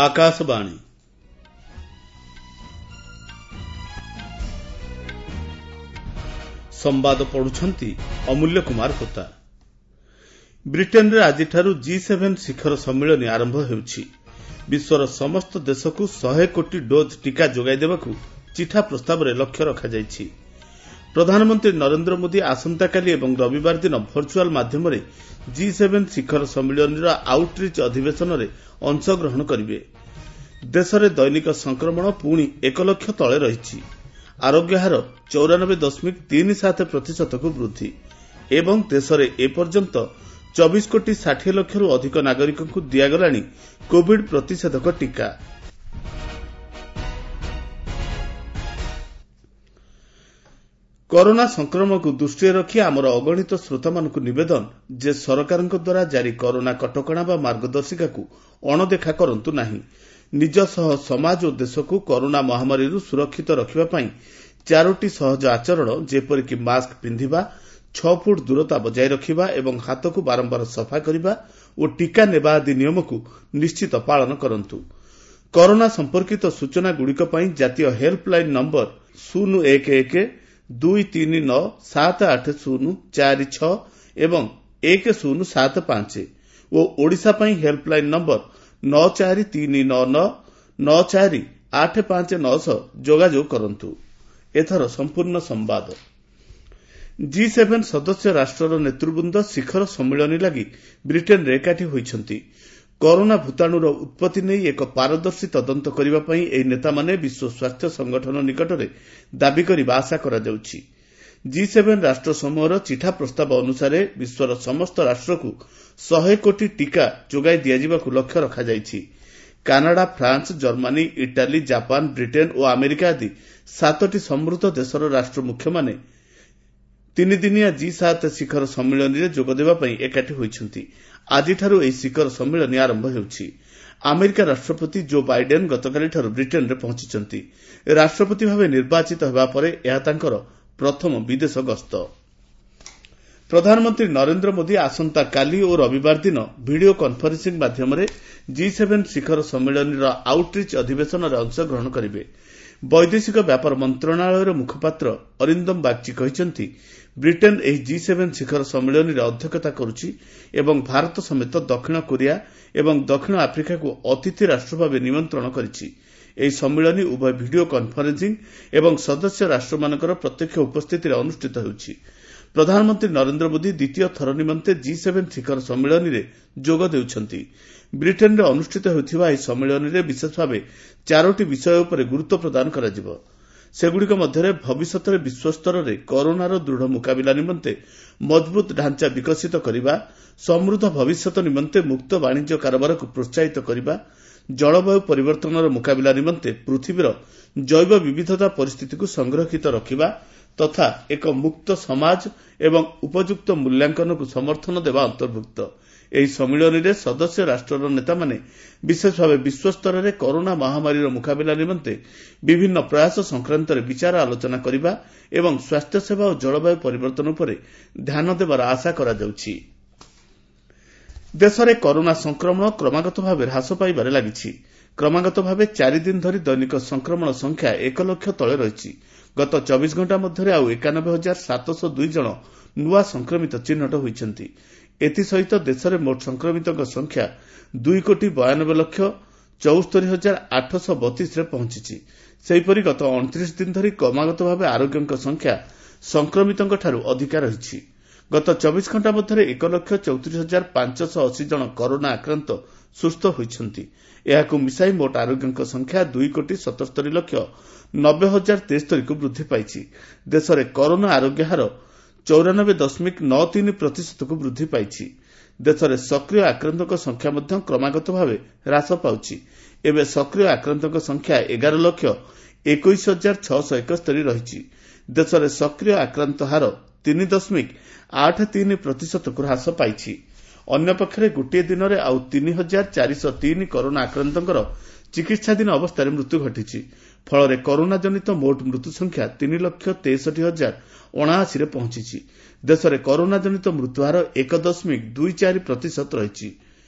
ଆକାଶବାଣୀ। ସମ୍ବାଦ ପଢୁଛନ୍ତି ଅମୂଲ୍ୟ କୁମାର ହୋତା। ବ୍ରିଟେନରେ ଆଜିଠାରୁ ଜି ସେଭେନ୍ ଶିଖର ସମ୍ମିଳନୀ ଆରମ୍ଭ ହେଉଛି। ବିଶ୍ୱର ସମସ୍ତ ଦେଶକୁ 100 କୋଟି ଡୋଜ୍ ଟିକା ଯୋଗାଇ ଦେବାକୁ ଚିଠା ପ୍ରସ୍ତାବରେ ଲକ୍ଷ୍ୟ ରଖାଯାଇଛି। ପ୍ରଧାନମନ୍ତ୍ରୀ ନରେନ୍ଦ୍ର ମୋଦି ଆସନ୍ତାକାଲି ଏବଂ ରବିବାର ଦିନ ଭର୍ଚୁଆଲ ମାଧ୍ୟମରେ ଜି ସେଭେନ୍ ଶିଖର ସମ୍ମିଳନୀର ଆଉଟ୍ରିଚ୍ ଅଧିବେଶନରେ ଅଂଶଗ୍ରହଣ କରିବେ। ଦେଶରେ ଦୈନିକ ସଂକ୍ରମଣ ପୁଣି 1 ଲକ୍ଷ ତଳେ ରହିଛି। ଆରୋଗ୍ୟ ହାର 94.37 ପ୍ରତିଶତକୁ ବୃଦ୍ଧି ଏବଂ ଦେଶରେ ଏପର୍ଯ୍ୟନ୍ତ 24 କୋଟି 60 ଲକ୍ଷରୁ ଅଧିକ ନାଗରିକଙ୍କୁ ଦିଆଗଲାଣି କୋବିଡ୍ ପ୍ରତିଷେଧକ ଟିକା। କରୋନା ସଂକ୍ରମଣକୁ ଦୃଷ୍ଟିରେ ରଖି ଆମର ଅଗଣିତ ଶ୍ରୋତାମାନଙ୍କୁ ନିବେଦନ ଯେ ସରକାରଙ୍କ ଦ୍ୱାରା ଜାରି କରୋନା କଟକଣା ବା ମାର୍ଗଦର୍ଶିକାକୁ ଅଣଦେଖା କରନ୍ତୁ ନାହିଁ। ନିଜ ସହ ସମାଜ ଓ ଦେଶକୁ କରୋନା ମହାମାରୀରୁ ସୁରକ୍ଷିତ ରଖିବା ପାଇଁ ଚାରୋଟି ସହଜ ଆଚରଣ ଯେପରିକି ମାସ୍କ ପିନ୍ଧିବା, 6 ଫୁଟ ଦୂରତା ବଜାୟ ରଖିବା ଏବଂ ହାତକୁ ବାରମ୍ବାର ସଫା କରିବା ଓ ଟିକା ନେବା ଆଦି ନିୟମକୁ ନିଶ୍ଚିତ ପାଳନ କରନ୍ତୁ। କରୋନା ସମ୍ପର୍କିତ ସୂଚନାଗୁଡ଼ିକ ପାଇଁ ଜାତୀୟ ହେଲ୍ପଲାଇନ୍ ନମ୍ବର 011 239 780 46 ଏବଂ 1075 ଓ ଓଡ଼ିଶା ପାଇଁ ହେଲ୍ପଲାଇନ୍ ନମ୍ବର 94399 94859 ସହ ଯୋଗାଯୋଗ କରନ୍ତୁ। ଏଥର ସମ୍ପୂର୍ଣ୍ଣ ସମ୍ବାଦ। ଜି ସେଭେନ୍ ସଦସ୍ୟ ରାଷ୍ଟ୍ରର ନେତୃବୃନ୍ଦ ଶିଖର ସମ୍ମିଳନୀ ଲାଗି ବ୍ରିଟେନରେ ଏକାଠି ହୋଇଛନ୍ତି। କରୋନା ଭୂତାଣୁର ଉତ୍ପତ୍ତି ନେଇ ଏକ ପାରଦର୍ଶୀ ତଦନ୍ତ କରିବା ପାଇଁ ଏହି ନେତାମାନେ ବିଶ୍ୱ ସ୍ୱାସ୍ଥ୍ୟ ସଂଗଠନ ନିକଟରେ ଦାବି କରିବା ଆଶା କରାଯାଉଛି। ଜି ସେଭେନ୍ ରାଷ୍ଟ୍ରସମୂହର ଚିଠା ପ୍ରସ୍ତାବ ଅନୁସାରେ ବିଶ୍ୱର ସମସ୍ତ ରାଷ୍ଟ୍ରକୁ 100 କୋଟି ଟିକା ଯୋଗାଇ ଦିଆଯିବାକୁ ଲକ୍ଷ୍ୟ ରଖାଯାଇଛି। Canada, France, Germany, Italy, Japan, Britain ଓ ଆମେରିକା ଆଦି 7ଟି ସମୃଦ୍ଧ ଦେଶର ରାଷ୍ଟ୍ରମୁଖ୍ୟମାନେ ତିନିଦିନିଆ ଜି 7 ଶିଖର ସମ୍ମିଳନୀରେ ଯୋଗଦେବା ପାଇଁ ଏକାଠି ହୋଇଛନ୍ତି। ଆଜିଠାରୁ ଏହି ଶିଖର ସମ୍ମିଳନୀ ଆରମ୍ଭ ହେଉଛି। ଆମେରିକା ରାଷ୍ଟ୍ରପତି ଜୋ ବାଇଡେନ୍ ଗତକାଲିଠାରୁ ବ୍ରିଟେନରେ ପହଞ୍ଚିଛନ୍ତି। ରାଷ୍ଟ୍ରପତି ଭାବେ ନିର୍ବାଚିତ ହେବା ପରେ ଏହା ତାଙ୍କର ପ୍ରଥମ ବିଦେଶ ଗସ୍ତ। ପ୍ରଧାନମନ୍ତ୍ରୀ ନରେନ୍ଦ୍ର ମୋଦି ଆସନ୍ତାକାଲି ଓ ରବିବାର ଦିନ ଭିଡ଼ିଓ କନ୍ଫରେନ୍ସିଂ ମାଧ୍ୟମରେ ଜି ସେଭେନ୍ ଶିଖର ସମ୍ମିଳନୀର ଆଉଟ୍ରିଚ୍ ଅଧିବେଶନରେ ଅଂଶଗ୍ରହଣ କରିବେ। ବୈଦେଶିକ ବ୍ୟାପାର ମନ୍ତ୍ରଣାଳୟର ମୁଖପାତ୍ର ଅରିନ୍ଦମ ବାଗ୍ଚୀ କହିଛନ୍ତି, ବ୍ରିଟେନ୍ ଏହି ଜି ସେଭେନ୍ ଶିଖର ସମ୍ମିଳନୀରେ ଅଧ୍ୟକ୍ଷତା କରୁଛି ଏବଂ ଭାରତ ସମେତ ଦକ୍ଷିଣ କୋରିଆ ଏବଂ ଦକ୍ଷିଣ ଆଫ୍ରିକାକୁ ଅତିଥି ରାଷ୍ଟ୍ର ଭାବେ ନିମନ୍ତ୍ରଣ କରିଛି। ଏହି ସମ୍ମିଳନୀ ଉଭୟ ଭିଡ଼ିଓ କନ୍ଫରେନ୍ସିଂ ଏବଂ ସଦସ୍ୟ ରାଷ୍ଟ୍ରମାନଙ୍କର ପ୍ରତ୍ୟକ୍ଷ ଉପସ୍ଥିତିରେ ଅନୁଷ୍ଠିତ ହେଉଛି। ପ୍ରଧାନମନ୍ତ୍ରୀ ନରେନ୍ଦ୍ର ମୋଦି ଦ୍ୱିତୀୟ ଥର ନିମନ୍ତେ ଜି ସେଭେନ୍ ଶିଖର ସମ୍ମିଳନୀରେ ଯୋଗ ଦେଉଛନ୍ତି। ବ୍ରିଟେନରେ ଅନୁଷ୍ଠିତ ହେଉଥିବା ଏହି ସମ୍ମିଳନୀରେ ବିଶେଷ ଭାବେ ଚାରୋଟି ବିଷୟ ଉପରେ ଗୁରୁତ୍ୱ ପ୍ରଦାନ କରାଯିବ। ସେଗୁଡ଼ିକ ମଧ୍ୟରେ ଭବିଷ୍ୟତରେ ବିଶ୍ୱସ୍ତରରେ କରୋନାର ଦୃଢ଼ ମୁକାବିଲା ନିମନ୍ତେ ମଜବୁତ ଢାଞ୍ଚା ବିକଶିତ କରିବା, ସମୃଦ୍ଧ ଭବିଷ୍ୟତ ନିମନ୍ତେ ମୁକ୍ତ ବାଣିଜ୍ୟ କାରବାରକୁ ପ୍ରୋତ୍ସାହିତ କରିବା, ଜଳବାୟୁ ପରିବର୍ତ୍ତନର ମୁକାବିଲା ନିମନ୍ତେ ପୃଥିବୀର ଜୈବ ବିବିଧତା ପରିସ୍ଥିତିକୁ ସଂରକ୍ଷିତ ରଖିବା ତଥା ଏକ ମୁକ୍ତ ସମାଜ ଏବଂ ଉପଯୁକ୍ତ ମୂଲ୍ୟାଙ୍କନକୁ ସମର୍ଥନ ଦେବା ଅନ୍ତର୍ଭୁକ୍ତ। ଏହି ସମ୍ମିଳନୀରେ ସଦସ୍ୟ ରାଷ୍ଟ୍ରର ନେତାମାନେ ବିଶେଷ ଭାବେ ବିଶ୍ୱସ୍ତରରେ କରୋନା ମହାମାରୀର ମୁକାବିଲା ନିମନ୍ତେ ବିଭିନ୍ନ ପ୍ରୟାସ ସଂକ୍ରାନ୍ତରେ ବିଚାର ଆଲୋଚନା କରିବା ଏବଂ ସ୍ୱାସ୍ଥ୍ୟସେବା ଓ ଜଳବାୟୁ ପରିବର୍ତ୍ତନ ଉପରେ ଧ୍ୟାନ ଦେବାର ଆଶା କରାଯାଉଛି। ଦେଶରେ କରୋନା ସଂକ୍ରମଣ କ୍ରମାଗତ ଭାବେ ହ୍ରାସ ପାଇବାରେ ଲାଗିଛି। କ୍ରମାଗତ ଭାବେ 4 ଦିନ ଧରି ଦୈନିକ ସଂକ୍ରମଣ ସଂଖ୍ୟା 1 ଲକ୍ଷ ତଳେ ରହିଛି। ଗତ 24 ଘଣ୍ଟା ମଧ୍ୟରେ ଆଉ 91,702 ଜଣ ନୂଆ ସଂକ୍ରମିତ ଚିହ୍ନଟ ହୋଇଛନ୍ତି। ଏଥିସହିତ ଦେଶରେ ମୋଟ ସଂକ୍ରମିତଙ୍କ ସଂଖ୍ୟା 2 କୋଟି 92 ଲକ୍ଷ 74 ହଜାର 832ରେ ପହଞ୍ଚିଛି। ସେହିପରି ଗତ 29 ଦିନ ଧରି କ୍ରମାଗତ ଭାବେ ଆରୋଗ୍ୟଙ୍କ ସଂଖ୍ୟା ସଂକ୍ରମିତଙ୍କଠାରୁ ଅଧିକା ରହିଛି। ଗତ 24 ଘଣ୍ଟା ମଧ୍ୟରେ 1 ଲକ୍ଷ 34 ହଜାର 580 ଜଣ କରୋନା ଆକ୍ରାନ୍ତ ସୁସ୍ଥ ହୋଇଛନ୍ତି। ଏହାକୁ ମିଶାଇ ମୋଟ ଆରୋଗ୍ୟଙ୍କ ସଂଖ୍ୟା 2 କୋଟି 77 ଲକ୍ଷ 90 ହଜାର 73କୁ ବୃଦ୍ଧି ପାଇଛି। ଦେଶରେ କରୋନା ଆରୋଗ୍ୟ ହାର 94.93 ପ୍ରତିଶତକୁ ବୃଦ୍ଧି ପାଇଛି। ଦେଶରେ ସକ୍ରିୟ ଆକ୍ରାନ୍ତଙ୍କ ସଂଖ୍ୟା ମଧ୍ୟ କ୍ରମାଗତ ଭାବେ ହ୍ରାସ ପାଉଛି। ଏବେ ସକ୍ରିୟ ଆକ୍ରାନ୍ତଙ୍କ ସଂଖ୍ୟା 11 ଲକ୍ଷ 21 ହଜାର 671 ରହିଛି। ଦେଶରେ ସକ୍ରିୟ ଆକ୍ରାନ୍ତ ହାର 3.83 ପ୍ରତିଶତକୁ ହ୍ରାସ ପାଇଛି। ଅନ୍ୟପକ୍ଷରେ ଗୋଟିଏ ଦିନରେ ଆଉ 3,403 କରୋନା ଆକ୍ରାନ୍ତଙ୍କର ଚିକିତ୍ସାଧୀନ ଅବସ୍ଥାରେ ମୃତ୍ୟୁ ଘଟିଛି। ଫଳରେ କରୋନା ଜନିତ ମୋଟ ମୃତ୍ୟୁ ସଂଖ୍ୟା 3 ଲକ୍ଷ 63 ହଜାର 79ରେ ପହଞ୍ଚିଛି। ଦେଶରେ କରୋନା ଜନିତ ମୃତ୍ୟୁହାର 1.24 ପ୍ରତିଶତ ରହିଛି।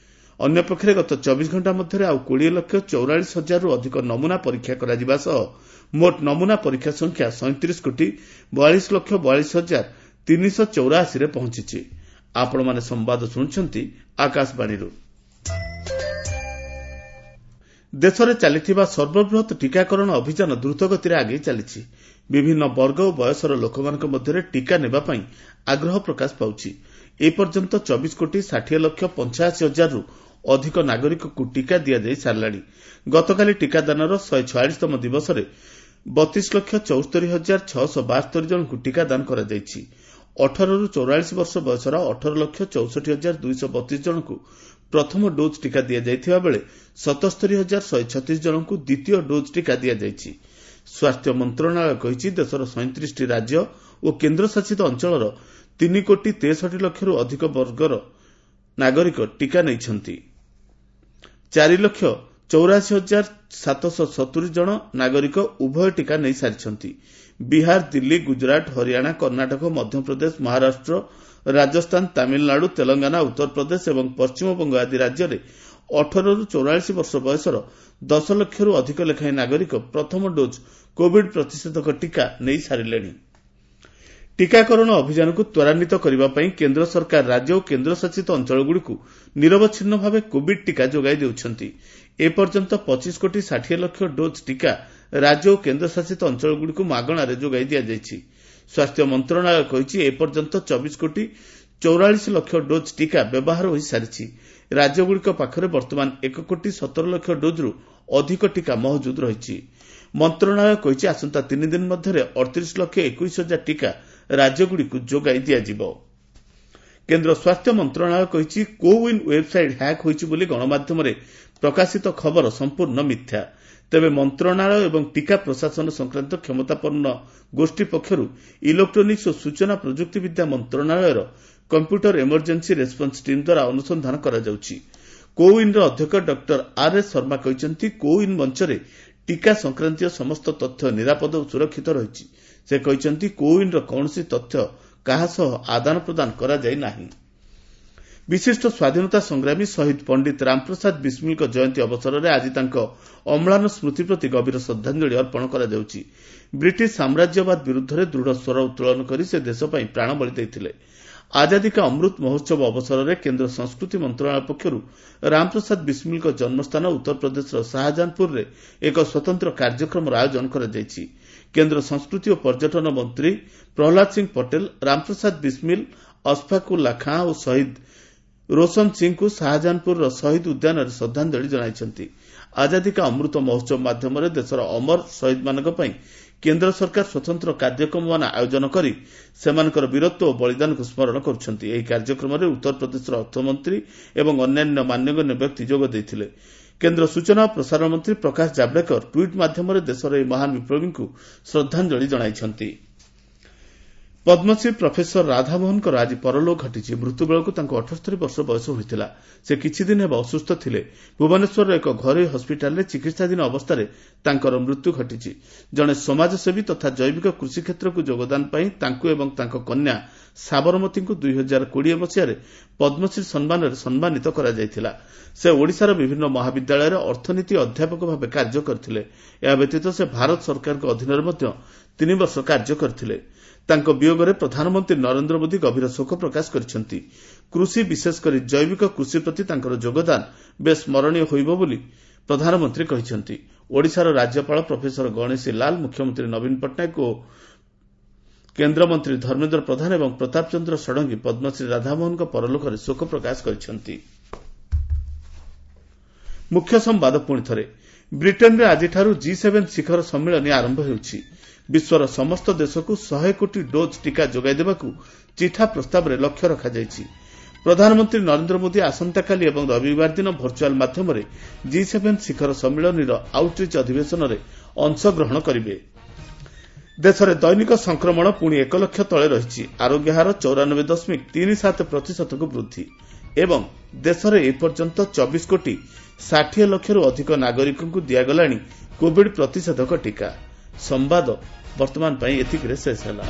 ଅନ୍ୟପକ୍ଷରେ ଗତ 24 ଘଣ୍ଟା ମଧ୍ୟରେ ଆଉ 20 ଲକ୍ଷ 44 ହଜାରରୁ ଅଧିକ ନମୁନା ପରୀକ୍ଷା କରାଯିବା ସହ ମୋଟ ନମୁନା ପରୀକ୍ଷା ସଂଖ୍ୟା 37 କୋଟି 42 ଲକ୍ଷ 42 ହଜାର 384ରେ ପହଞ୍ଚିଛି। ଆପଣମାନେ ସମ୍ବାଦ ଶୁଣୁଛନ୍ତି ଆକାଶବାଣୀରୁ। ଦେଶରେ ଚାଲିଥିବା ସର୍ବବୃହତ୍ ଟିକାକରଣ ଅଭିଯାନ ଦ୍ରୁତଗତିରେ ଆଗେଇ ଚାଲିଛି। ବିଭିନ୍ନ ବର୍ଗ ଓ ବୟସର ଲୋକମାନଙ୍କ ମଧ୍ୟରେ ଟିକା ନେବା ପାଇଁ ଆଗ୍ରହ ପ୍ରକାଶ ପାଉଛି। ଏପର୍ଯ୍ୟନ୍ତ 24 କୋଟି 60 ଲକ୍ଷ 85 ହଜାରରୁ ଅଧିକ ନାଗରିକଙ୍କୁ ଟିକା ଦିଆଯାଇ ସାରିଲାଣି। ଗତକାଲି ଟିକାଦାନର 146ତମ ଦିବସରେ 32 ଲକ୍ଷ 74 ହଜାର 672 ଜଣଙ୍କୁ ଟିକାଦାନ କରାଯାଇଛି। 18ରୁ 44 ବର୍ଷ ବୟସର 18 ଲକ୍ଷ 64 ହଜାର 232 ଜଣଙ୍କୁ ପ୍ରଥମ ଡୋଜ୍ ଟିକା ଦିଆଯାଇଥିବା ବେଳେ 77 ହଜାର 136 ଜଣଙ୍କୁ ଦ୍ୱିତୀୟ ଡୋଜ୍ ଟିକା ଦିଆଯାଇଛି। ସ୍ୱାସ୍ଥ୍ୟ ମନ୍ତ୍ରଣାଳୟ କହିଛି, ଦେଶର 37ଟି ରାଜ୍ୟ ଓ କେନ୍ଦ୍ରଶାସିତ ଅଞ୍ଚଳର 3 କୋଟି 63 ଲକ୍ଷରୁ ଅଧିକ ବର୍ଗର ନାଗରିକ ଟିକା ନେଇଛନ୍ତି। 4 ଲକ୍ଷ 84 ହଜାର 770 ଜଣ ନାଗରିକ ଉଭୟ ଟିକା ନେଇସାରିଛନ୍ତି। ବିହାର, ଦିଲ୍ଲୀ, ଗୁଜରାଟ, ହରିୟାଣା, କର୍ଣ୍ଣାଟକ, ମଧ୍ୟପ୍ରଦେଶ, ମହାରାଷ୍ଟ୍ର, ରାଜସ୍ଥାନ, ତାମିଲନାଡୁ, ତେଲଙ୍ଗାନା, ଉତ୍ତରପ୍ରଦେଶ ଏବଂ ପଶ୍ଚିମବଙ୍ଗ ଆଦି ରାଜ୍ୟରେ 18ରୁ 44 ବର୍ଷ ବୟସର 10 ଲକ୍ଷରୁ ଅଧିକ ଲେଖାଏଁ ନାଗରିକ ପ୍ରଥମ ଡୋଜ୍ କୋବିଡ୍ ପ୍ରତିଷେଧକ ଟିକା ନେଇସାରିଲେଣି। ଟିକାକରଣ ଅଭିଯାନକୁ ତ୍ୱରାନ୍ୱିତ କରିବା ପାଇଁ କେନ୍ଦ୍ର ସରକାର ରାଜ୍ୟ ଓ କେନ୍ଦ୍ରଶାସିତ ଅଞ୍ଚଳଗୁଡ଼ିକୁ ନିରବଚ୍ଛିନ୍ନ ଭାବେ କୋବିଡ୍ ଟିକା ଯୋଗାଇ ଦେଉଛନ୍ତି। ଏପର୍ଯ୍ୟନ୍ତ 25 କୋଟି 60 ଲକ୍ଷ ଡୋଜ୍ ଟିକା ରାଜ୍ୟ ଓ କେନ୍ଦ୍ରଶାସିତ ଅଞ୍ଚଳଗୁଡ଼ିକୁ ମାଗଣାରେ ଯୋଗାଇ ଦିଆଯାଇଛି। ସ୍ୱାସ୍ଥ୍ୟ ମନ୍ତ୍ରଣାଳୟ କହିଛି, ଏପର୍ଯ୍ୟନ୍ତ 24 କୋଟି 44 ଲକ୍ଷ ଡୋଜ୍ ଟିକା ବ୍ୟବହାର ହୋଇସାରିଛି। ରାଜ୍ୟଗୁଡ଼ିକ ପାଖରେ ବର୍ତ୍ତମାନ 1 କୋଟି 17 ଲକ୍ଷ ଡୋଜ୍ରୁ ଅଧିକ ଟିକା ମହଜୁଦ ରହିଛି। ମନ୍ତ୍ରଣାଳୟ କହିଛି, ଆସନ୍ତା 3 ଦିନ ମଧ୍ୟରେ 38 ଲକ୍ଷ 21 ହଜାର ଟିକା ରାଜ୍ୟଗୁଡ଼ିକୁ ଯୋଗାଇ ଦିଆଯିବ। କେନ୍ଦ୍ର ସ୍ୱାସ୍ଥ୍ୟ ମନ୍ତ୍ରଣାଳୟ କହିଛି, କୋୱିନ୍ ୱେବ୍ସାଇଟ୍ ହ୍ୟାକ୍ ହୋଇଛି ବୋଲି ଗଣମାଧ୍ୟମରେ ପ୍ରକାଶିତ ଖବର ସମ୍ପୂର୍ଣ୍ଣ ମିଥ୍ୟା। ତେବେ ମନ୍ତ୍ରଣାଳୟ ଏବଂ ଟିକା ପ୍ରଶାସନ ସଂକ୍ରାନ୍ତ କ୍ଷମତାପନ୍ନ ଗୋଷ୍ଠୀ ପକ୍ଷରୁ ଇଲେକ୍ଟ୍ରୋନିକ୍ସ ଓ ସୂଚନା ପ୍ରଯୁକ୍ତିବିଦ୍ୟା ମନ୍ତ୍ରଣାଳୟର କମ୍ପ୍ୟୁଟର ଏମର୍ଜେନ୍ସି ରେସ୍ପନ୍ସ ଟିମ୍ ଦ୍ୱାରା ଅନୁସନ୍ଧାନ କରାଯାଉଛି। କୋୱିନ୍ର ଅଧ୍ୟକ୍ଷ ଡକ୍ଟର ଆର୍ ଏସ୍ ଶର୍ମା କହିଛନ୍ତି, କୋୱିନ୍ ମଞ୍ଚରେ ଟିକା ସଂକ୍ରାନ୍ତୀୟ ସମସ୍ତ ତଥ୍ୟ ନିରାପଦ ଓ ସୁରକ୍ଷିତ ରହିଛି। ସେ କହିଛନ୍ତି, କୋୱିନ୍ର କୌଣସି ତଥ୍ୟ କାହା ସହ ଆଦାନ ପ୍ରଦାନ କରାଯାଇ ନାହିଁ। ବିଶିଷ୍ଟ ସ୍ୱାଧୀନତା ସଂଗ୍ରାମୀ ଶହୀଦ ପଣ୍ଡିତ ରାମପ୍ରସାଦ ବିସ୍ମିଲଙ୍କ ଜୟନ୍ତୀ ଅବସରରେ ଆଜି ତାଙ୍କ ଅମ୍ଳାନ ସ୍ମୃତି ପ୍ରତି ଗଭୀର ଶ୍ରଦ୍ଧାଞ୍ଜଳି ଅର୍ପଣ କରାଯାଉଛି। ବ୍ରିଟିଶ ସାମ୍ରାଜ୍ୟବାଦ ବିରୁଦ୍ଧରେ ଦୃଢ଼ ସ୍ୱର ଉତ୍ତୋଳନ କରି ସେ ଦେଶ ପାଇଁ ପ୍ରାଣବଳି ଦେଇଥିଲେ। ଆଜାଦୀ କା ଅମୃତ ମହୋତ୍ସବ ଅବସରରେ କେନ୍ଦ୍ର ସଂସ୍କୃତି ମନ୍ତ୍ରଣାଳୟ ପକ୍ଷରୁ ରାମପ୍ରସାଦ ବିସ୍ମିଲଙ୍କ ଜନ୍ମସ୍ଥାନ ଉତ୍ତରପ୍ରଦେଶର ଶାହାଜାହାନପୁରରେ ଏକ ସ୍ୱତନ୍ତ୍ର କାର୍ଯ୍ୟକ୍ରମର ଆୟୋଜନ କରାଯାଇଛି। କେନ୍ଦ୍ର ସଂସ୍କୃତି ଓ ପର୍ଯ୍ୟଟନ ମନ୍ତ୍ରୀ ପ୍ରହ୍ଲାଦ ସିଂ ପଟେଲ ରାମପ୍ରସାଦ ବିସ୍ମିଲ, ଅଶଫାକୁଲ୍ଲା ଖାଁ ଓ ଶହୀଦ ରୋଶନ ସିଂଙ୍କୁ ଶାହାଜାହାନପୁରର ଶହୀଦ ଉଦ୍ୟାନରେ ଶ୍ରଦ୍ଧାଞ୍ଜଳି ଜଣାଇଛନ୍ତି। ଆଜାଦୀ କା ଅମୃତ ମହୋତ୍ସବ ମାଧ୍ୟମରେ ଦେଶର ଅମର ଶହୀଦମାନଙ୍କ ପାଇଁ କେନ୍ଦ୍ର ସରକାର ସ୍ୱତନ୍ତ୍ର କାର୍ଯ୍ୟକ୍ରମମାନ ଆୟୋଜନ କରି ସେମାନଙ୍କର ବୀରତ୍ୱ ଓ ବଳିଦାନକୁ ସ୍ମରଣ କରୁଛନ୍ତି। ଏହି କାର୍ଯ୍ୟକ୍ରମରେ ଉତ୍ତରପ୍ରଦେଶର ଅର୍ଥମନ୍ତ୍ରୀ ଏବଂ ଅନ୍ୟାନ୍ୟ ମାନ୍ୟଗଣ୍ୟ ବ୍ୟକ୍ତି ଯୋଗ ଦେଇଥିଲେ। କେନ୍ଦ୍ର ସୂଚନା ଓ ପ୍ରସାରଣ ମନ୍ତ୍ରୀ ପ୍ରକାଶ ଜାଭଡେକର ଟ୍ୱିଟ୍ ମାଧ୍ୟମରେ ଦେଶର ଏହି ମହାନ ବିପ୍ଳବୀଙ୍କୁ ଶ୍ରଦ୍ଧାଞ୍ଜଳି ଜଣାଇଛନ୍ତି। ପଦ୍ମଶ୍ରୀ ପ୍ରଫେସର ରାଧାମୋହନଙ୍କର ଆଜି ପରଲୋକ ଘଟିଛି। ମୃତ୍ୟୁବେଳକୁ ତାଙ୍କୁ 78 ବର୍ଷ ବୟସ ହୋଇଥିଲା। ସେ କିଛିଦିନ ହେବ ଅସୁସ୍ଥ ଥିଲେ। ଭୁବନେଶ୍ୱରର ଏକ ଘରୋଇ ହସ୍ପିଟାଲରେ ଚିକିତ୍ସାଧୀନ ଅବସ୍ଥାରେ ତାଙ୍କର ମୃତ୍ୟୁ ଘଟିଛି। ଜଣେ ସମାଜସେବୀ ତଥା ଜୈବିକ କୃଷି କ୍ଷେତ୍ରକୁ ଯୋଗଦାନ ପାଇଁ ତାଙ୍କୁ ଏବଂ ତାଙ୍କ କନ୍ୟା ସାବରମତୀଙ୍କୁ 2020 ମସିହାରେ ପଦ୍ମଶ୍ରୀ ସମ୍ମାନରେ ସମ୍ମାନିତ କରାଯାଇଥିଲା। ସେ ଓଡ଼ିଶାର ବିଭିନ୍ନ ମହାବିଦ୍ୟାଳୟରେ ଅର୍ଥନୀତି ଅଧ୍ୟାପକ ଭାବେ କାର୍ଯ୍ୟ କରିଥିଲେ। ଏହା ବ୍ୟତୀତ ସେ ଭାରତ ସରକାରଙ୍କ ଅଧୀନରେ ମଧ୍ୟ 3 ବର୍ଷ କାର୍ଯ୍ୟ କରିଥିଲେ। ତାଙ୍କ ବିୟୋଗରେ ପ୍ରଧାନମନ୍ତ୍ରୀ ନରେନ୍ଦ୍ର ମୋଦି ଗଭୀର ଶୋକ ପ୍ରକାଶ କରିଛନ୍ତି। କୃଷି, ବିଶେଷ କରି ଜୈବିକ କୃଷି ପ୍ରତି ତାଙ୍କର ଯୋଗଦାନ ବେଶ୍ ସ୍ମରଣୀୟ ହୋଇବ ବୋଲି ପ୍ରଧାନମନ୍ତ୍ରୀ କହିଛନ୍ତି। ଓଡ଼ିଶାର ରାଜ୍ୟପାଳ ପ୍ରଫେସର ଗଣେଶୀ ଲାଲ, ମୁଖ୍ୟମନ୍ତ୍ରୀ ନବୀନ ପଟ୍ଟନାୟକ ଓ କେନ୍ଦ୍ରମନ୍ତ୍ରୀ ଧର୍ମେନ୍ଦ୍ର ପ୍ରଧାନ ଏବଂ ପ୍ରତାପ ଚନ୍ଦ୍ର ଷଡ଼ଙ୍ଗୀ ପଦ୍ମଶ୍ରୀ ରାଧାମୋହନଙ୍କ ପରଲୋକରେ ଶୋକ ପ୍ରକାଶ କରିଛନ୍ତି। ମୁଖ୍ୟ ସମ୍ବାଦ ପୁଣିଥରେ। ବ୍ରିଟେନରେ ଆଜିଠାରୁ ଜି7 ଶିଖର ସମ୍ମିଳନୀ ଆରମ୍ଭ ହେଉଛି। ବିଶ୍ୱର ସମସ୍ତ ଦେଶକୁ 100 କୋଟି ଡୋଜ୍ ଟିକା ଯୋଗାଇ ଦେବାକୁ ଚିଠା ପ୍ରସ୍ତାବରେ ଲକ୍ଷ୍ୟ ରଖାଯାଇଛି। ପ୍ରଧାନମନ୍ତ୍ରୀ ନରେନ୍ଦ୍ର ମୋଦି ଆସନ୍ତାକାଲି ଏବଂ ରବିବାର ଦିନ ଭର୍ଚୁଆଲ ମାଧ୍ୟମରେ ଜି7 ଶିଖର ସମ୍ମିଳନୀର ଆଉଟରିଚ୍ ଅଧିବେଶନରେ ଅଂଶଗ୍ରହଣ କରିବେ। ଦେଶରେ ଦୈନିକ ସଂକ୍ରମଣ ପୁଣି 1 ଲକ୍ଷ ତଳେ ରହିଛି। ଆରୋଗ୍ୟ ହାର 94.37%କୁ ବୃଦ୍ଧି ଏବଂ ଦେଶରେ ଏପର୍ଯ୍ୟନ୍ତ 24 କୋଟି 60 ଲକ୍ଷରୁ ଅଧିକ ନାଗରିକଙ୍କୁ ଦିଆଗଲାଣି କୋବିଡ୍ ପ୍ରତିଷେଧକ ଟିକା। ସମ୍ବାଦ ବର୍ତ୍ତମାନ ପାଇଁ ଏତିକିରେ ଶେଷ ହେଲା।